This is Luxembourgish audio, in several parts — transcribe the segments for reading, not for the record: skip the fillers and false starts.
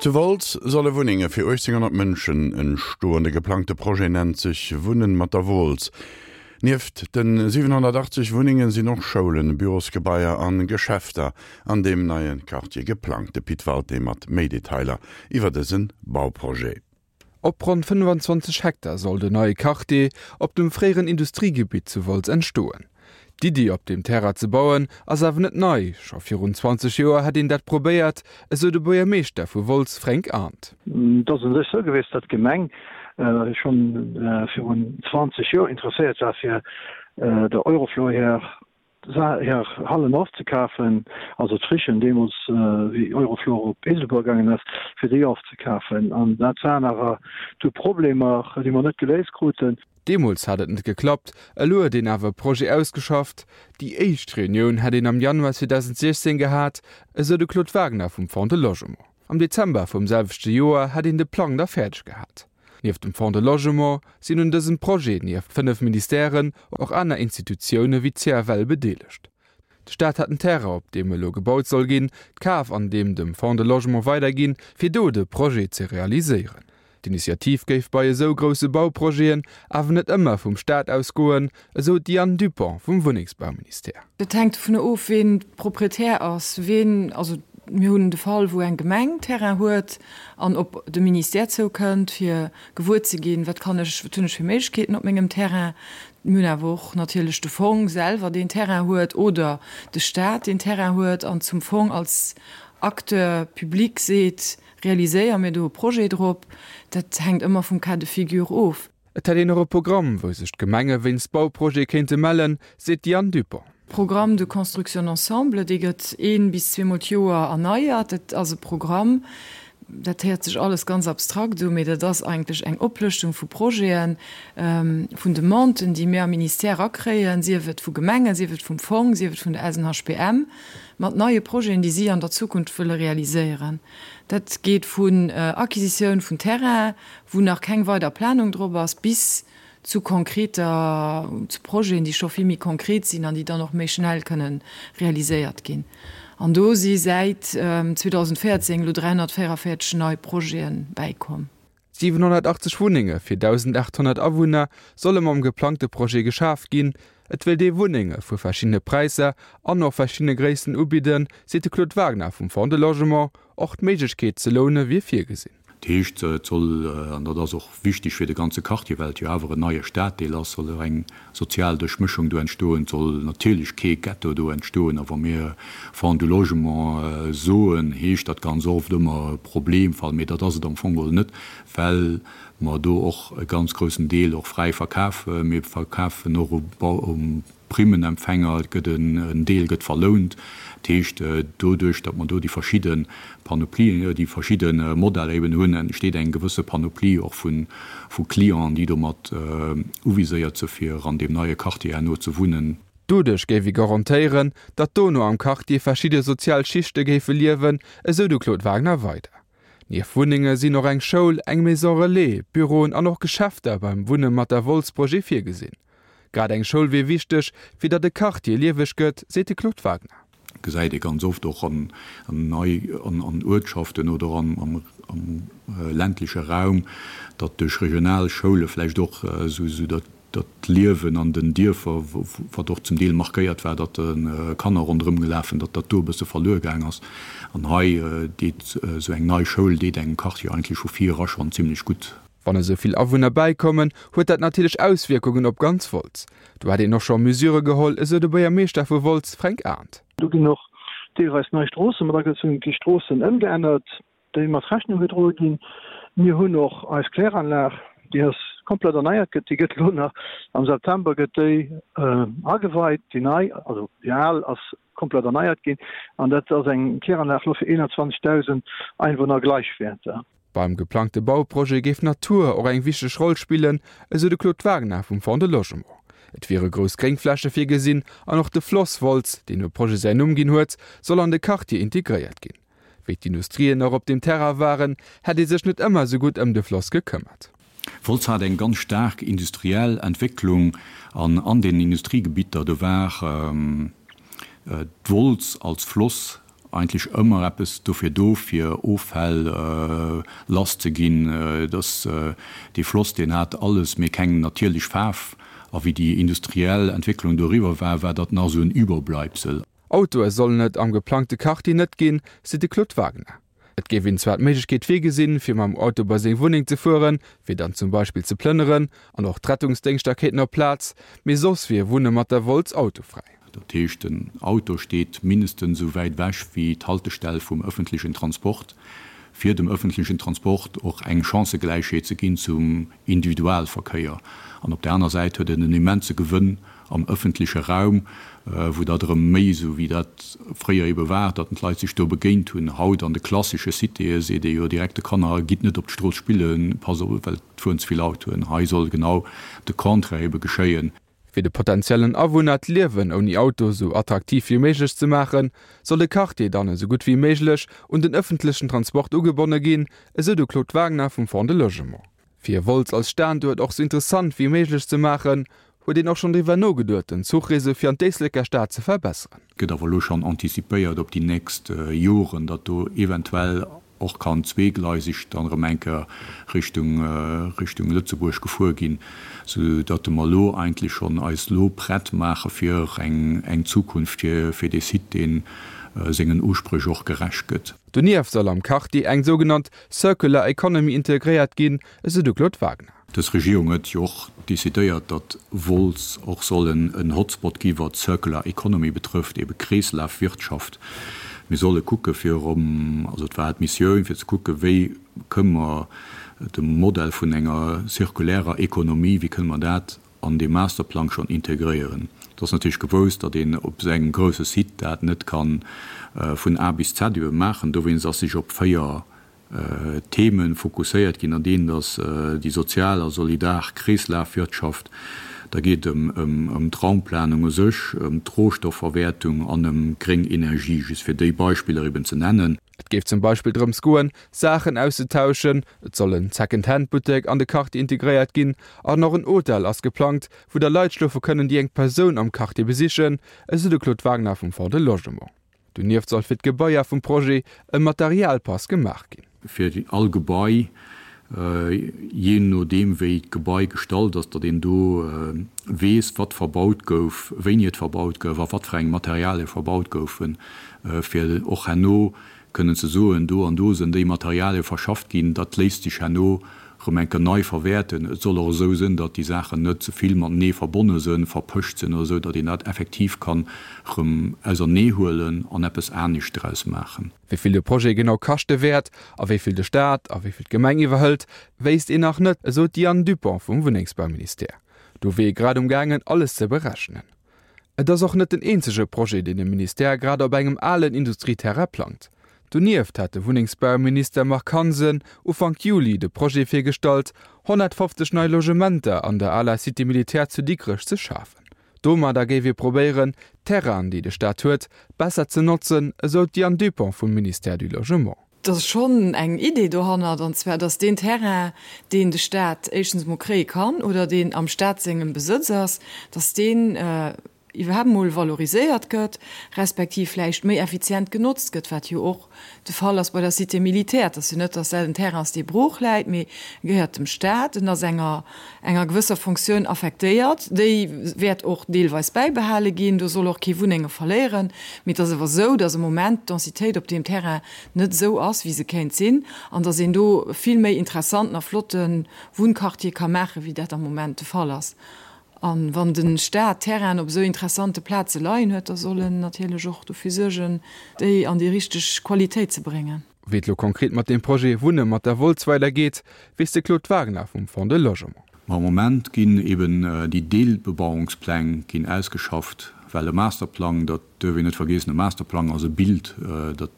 Zu Wolz solle Wunnenge fir 1.800 Mënschen entstoen. De geplangte Projet nennt sech Wunnen mat der Wooltz. Nieft de 780 Wunnenge sinn och Schoulen, Bürosgebaier an Geschäfter an deem neie Quartier geplangt. De Pit Walté mat méi Detailer iwwer dëse Bauprojet. Op ronn 25 Hektar soll den neie Quartier op dem fréieren Industriegebitt zu Wolz entstoen. D'Iddi, op deem Terrain ze bauen, ass awer net nei. Scho virun 20 Joer hätt een dat probéiert, esou de Buergermeeschter vu Wolz Fränk Arndt. Et ass u sech esou gewiescht, datt d'Gemeng scho virun 20 Joer interesséiert war, fir der Eurofloor hir hir Hallen ofzekafen, also d'Frichen deemools, wéi Eurofloor op Eeselbuer gaangen ass, fir déi ofzekafen. An dat waren awer du Problemer, déi mer net geléist kruten. Deemools hat et net geklappt, elo huet een awer e Projet ausgeschafft. Déi éischt Reunioun hätt een am Januar 2016 gehat, esou de Claude Wagner vum Fonds de Logement. Am Dezember vum selwechte Joer hätt een de Plang da fäerdeg gehat. Nieft dem Fonds de Logement sinn un dësem Projet nieft 5 Ministèren och aner Institutioune wéi d'CFL bedeelegt. De Staat hat den Terrain, op deem elo gebaut soll ginn, kaf an deem dem Fonds de Logement weiderginn, fir do de Projet ze realiséieren. D'Initiativ géif bei esou grousse Bauprojeten awer net ëmmer vum Staat ausgoen, esou d'Diane Dupont vum Wunnengsbauministère. Dat hänkt dovunner of, ween Proprietär ass, ween, also mir hunn de Fall, wou eng Gemeng Terrain huet an op de Ministère zoukënnt, fir gewuer ze ginn, wat kann ech, wat hunn ech fir Méiglechkeeten op mengem Terrain. Mir hunn awer och natierlech de Fong selwer, deen Terrain huet, oder de Staat, deen Terrain huet an zum Fong als Acteur public seet, Realiséier mir do e Projet drop. Dat hänkt ëmmer vum Cas de figure of. Et hätt een och e Programm, wou sech d'Gemenge wéinst Bauprojete kéinte mellen, seet d'Diane Dupont. Programme de construction ensemble, dee gëtt een bis zweemol d'Joer erneiert. Dat ass e Programm, dat héiert sech alles ganz abstrakt u, mee dat ass eigentlech eng Oplëschtung vu Projeten, vun Demanden, déi mir am Ministère erakréien, sief et vu Gemengen, sief et vum Fong, sief et vun der SNHBM, mat neie Projeten, déi si an der Zukunft wëlle realiséieren. Dat geet vun Acquisitioun vun Terrain, wou nach keng weider Planung drop ass, bis zu konkreter, zu Projeten, déi scho vill méi konkret sinn an déi dann och méi schnell kënnen realiséiert ginn. An do si säit 2014 elo 344 nei Projete bäikomm. 780 Wunnenge fir 1.800 Awunner solle mam geplangte Projet geschaf ginn. Et wéilt ee Wunnenge vu verschiddene Präisser an och verschiddene Gréissten ubidden, seet de Claude Wagner vum Fonds de Logement. Och d'Méiglechkeet ze loune wier virgesinn. Dat heescht, et soll, an dat ass och wichteg fir de ganze Quartier, well et jo awer en neie Staddeel ass, soll och eng sozial Duerchmëschung do entstoen. Et soll natierlech kee Ghetto do entstoen. A wa mir Fonds du Logement soen, heescht dat ganz oft ëmmer Problemfall, mee dat ass et am Fong geholl net, well mer do och e ganz groussen Deel och fräi verkafen. Mir verkafen och u Primmenempfänger, et gëtt en Deel gëtt verlount. Dat heescht, doduerch, datt mer do déi verschidde Panoplien, déi verschidde Modeller eben hunn, entsteet eng gewësse Panoplie och vu Clienten, déi domat uviséiert si fir an deem neie Quartier herno ze wunnen. Doduerch géif ee garantéieren, datt dono am Quartier verschidde sozial Schichte géife liewen, esou de Claude Wagner weider. Nieft Wunnenge sinn och eng Schoul, eng Maison Relais, Büroen an och Geschäfter beim Wunne mat der Wolz-Projet virgesinn. Grad eng Schoul wier wichteg, fir datt de Quartier lieweg gëtt, seet de Claude Wagner. Gesäit ee ganz oft och an an Uertschaften oder am ländleche Raum, datt duerch regional Schoule vläicht och esou dat Liewen an den Dierfer, wat och zum Deel markéiert war, datt Kanner ronderëm gelaf sinn, datt dat do e bësse verluer gaang ass. An hei deet esou eng nei Schoul deet engem Quartier eigentlech vu vir era schonn zimlech gutt. Wann esou vill Awunner bäikommen, huet dat natierlech Auswierkungen op ganz Wolz. Do hätt een och scho Mesure geholl, esou de Buergermeeschter vu Wolz, Fränk Arndt. Do ginn och deelweis nei Stroosse mat agezunn, et gi Stroossen ëmgeännert, déi mat Rechnung gedroe ginn. Mir hunn och eis Kläranlag, déi ass komplett erneiert gëtt, déi gëtt elo nach am September gëtt déi ageweit, déi nei, also déi al ass komplett erneiert ginn an dat ass eng Kläranlag elo fir 21.000 Einwohner Gleichwäerter. Beim geplangte Bauprojet géif d'Natur och eng wichteg Roll spillen, esou de Claude Wagner vum Fonds de Logement. Et wiere grouss Gréngfläche virgesinn an och de Floss Wolz, deen dem Projet säin Numm ginn huet, soll an de Quartier integréiert ginn. Wéi d'Industrien nach op deem Terrain waren, hätt ee sech net ëmmer esou gutt ëm de Floss gekëmmert. Wolz hat eng ganz staark industriell Entwécklung an an den Industriegebitter, do war d'Wolz als Floss. Eigentlech ëmmer eppes dofir do, fir Offäll lass ze ginn. Dass dee Floss, deen hat alles, mee keng natierlech Faarf. A wéi déi industriell Entwécklung do eriwwer war, war dat nach esou en Überbleibsel. Autoe sollen et am geplangte Quartier net ginn, seet de Claude Wagner. Et géif een zwar d'Méiglechkeet virgesinn, fir mam Auto bei seng Wunneng ze fueren, fir dann zum Beispill ze plënneren, an och d'Rettungsdéngschter kéinten op d'Plaz, mee soss wier Wunne mat der Wolz autofräi. Dat heescht, den Auto steet mindestens esou wäit ewech wéi d'Haltestell vum ëffentlechen Transport, fir dem ëffentlechen Transport och eng Chancëgläichheet ze ginn zum Individualverkéier. An op där aner Säit huet en en immense Gewënn am ëffentleche Raum, wou dat erëm méi esou wéi dat fréier ebe war, datt d'Leit sech do begéint hunn. Haut an de klassesche Citéë seet ee jo direkt de Kanner, Gitt net op d'Strooss spillen, passt op, well et fueren ze vill Autoen. Hei soll genau de Contraire ebe geschéien. Fir de potentiellen Awunner d'Liewen ouni Auto esou attraktiv wéi méiglech ze maachen, soll de Quartier dann esou gutt wéi méiglech un den ëffentlechen Transport ugebonne ginn, esou de Claude Wagner vum Fonds de Logement. Fir Wolz als Standuert och sou interessant wéi méiglech ze maachen, huet een och schonn driwwer nogeduet, den Zuchreseau fir an d'Éisleker Stad ze verbesseren. Gëtt awer elo schonn anticipéiert op déi nächst Joren, datt do eventuell och kann zweegleiseg dann erëm eng Kéier Richtung Richtung Lëtzebuerg gefuer ginn, sou datt mer elo eigentlech schonn eis elo prett maache fir eng eng Zukunft fir fir dee Site, dee sengen Uspréch och gerecht gëtt. Donieft soll am Quartier eng sougenannt Circular Economy integréiert ginn, esou de Claude Wagner. Dës Regierung huet jo och decidéiert, datt Wolz och soll en Hotspot gi wat Circular Economy betrëfft, ebe Kreeslafwirtschaft. Mir solle kucke fir erëm, also et war d'Missioun fir ze kucke wéi kënne mer de Modell vun enger zirkulärer Ekonomie, wéi kënne mer dat an dee Masterplang schonn integréieren. Et ass natierlech gewousst, datt een op esou engem grousse Site dat net ka vun A bis Z ebe maachen. Dowéinst ass sech op 4 Themen fokusséiert ginn, an deenen ass déi sozial a solidar Kreeslafwirtschaft, da geet et ëm d'Raumplanung u sech, ëm d'Rohstoffverwäertung an ëm gréng Energie, just fir déi Beispiller eben ze nennen. Et géif zum Beispill drëms goen, Saachen auszetauschen, et soll en Second-Hand-Buttek an de Quartier integréiert ginn an och en Hotel ass geplangt, wou da Leit schlofe kënnen, déi eng Persoun am Quartier besichen, esou de Claude Wagner vum Fonds de Logement. Donieft soll fir d'Gebaier vum Projet e Materialpass gemaach ginn. Fir all Gebai, jee nodeem wéi d'Gebai gestallt ass, datt een do weess, wat verbaut gouf, wéini et verbaut gouf a wat fir eng Materialie verbaut goufen, fir och herno kënnen ze soen, do an do sinn déi Materialie verschafft ginn, dat léisst sech herno rëm eng Kéier nei verwäerten. Et soll och esou sinn, datt déi Saachen net ze vill matenee verbonne sinn, verpëscht sinn oder esou, datt een dat effektiv kann rëm auserneehuelen an eppes anescht draus maachen. Wéi vill de Projet genau kaschte wäert a wéi vill de Staat a wéi vill d'Gemeng iwwerhëlt, wéisst een nach net, esou d'Diane Dupont vum Wunnengsbauministère. Do wier ee grad um gaangen, alles ze berechnen. Et ass och net den eenzege Projet, deen de Ministère grad op engem alen Industrieterrain plangt. Donieft hat de Wunnengsbauminister Marc Hansen Ufank Juli de Projet virgestallt, 150 nei Logementer an der aler Cité militaire zu Dikrech ze schafen. Domadder géif ee probéieren, d'Terrainen, déi de Staat huet, besser ze notzen, esou d'Diane Dupont vum Ministère du Logement. Et ass schonn eng Idee dohannert, an zwar datt deen Terrain, deen de Staat éischtens emol kréie kann oder deen am Staat sengem Besëtz ass, datt deen iwwerhaapt emol valoriséiert gëtt, respektiv vläicht méi effizient genotzt gëtt, wat jo och de Fall ass bei der Cité militaire. Et ass jo net, datt dat en Terrain ass, dee brooch läit, mee e gehéiert dem Staat, en ass enger enger gewësser Fonctioun affektéiert, déi wäert och deelweis bäibehale ginn, do soll och kee Wunnenge verléieren, mee et ass awer esou, datt am Moment d'Densitéit op deem Terrain net esou ass, wéi se kéint sinn, an datt een do vill méi interessanten a flotte Wunnquartier ka maachen, wéi dat am Moment de Fall ass. A wann de Staat Terrainen op esou interessante Plaze leien huet, da soll en natierlech och dofir suergen, déi an déi richteg Qualitéit ze bréngen. Wéi et lo konkret mat deem Projet Wunne mat der Wolz weidergeet, weess de Claude Wagner vum Fonds de Logement. Ma am Moment ginn eben déi Deelbebauungspläng ginn ausgeschafft, well e Masterplang, dat duerf een net vergiessen, e Masterplang ass e Bild, dat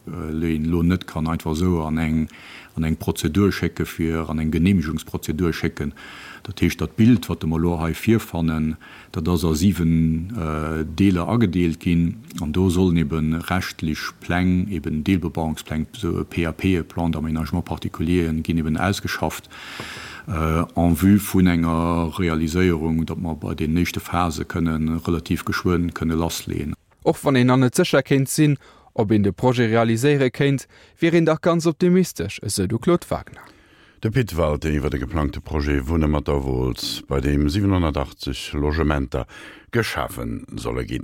een elo net kann einfach esou an eng an eng Prozedur schécke fir an eng Genehmigungsprozedur schécken. Dat heescht, dat Bild, wat mer elo hei virfannen, dat ass a 7 Deeler agedeelt ginn an do sollen ebe rechtlech Pläng, eben Deelbebauungspläng, esou e PAP, e Plan d'aménagement particulier, ginn eben ausgeschafft en vue vun enger Realiséierung, datt mer bei den éischte Phase kënnen relativ geschwënn kënne lassleeën. Och wann een nach net sécher kéint sinn, Ob een de Projet realiséiere kéint, wier een dach ganz optimistesch, esou de Claude Wagner. De Pit Walté iwwer de geplangte Projet Wunne mat der Wooltz, bei deem 780 Logementer geschafe solle ginn.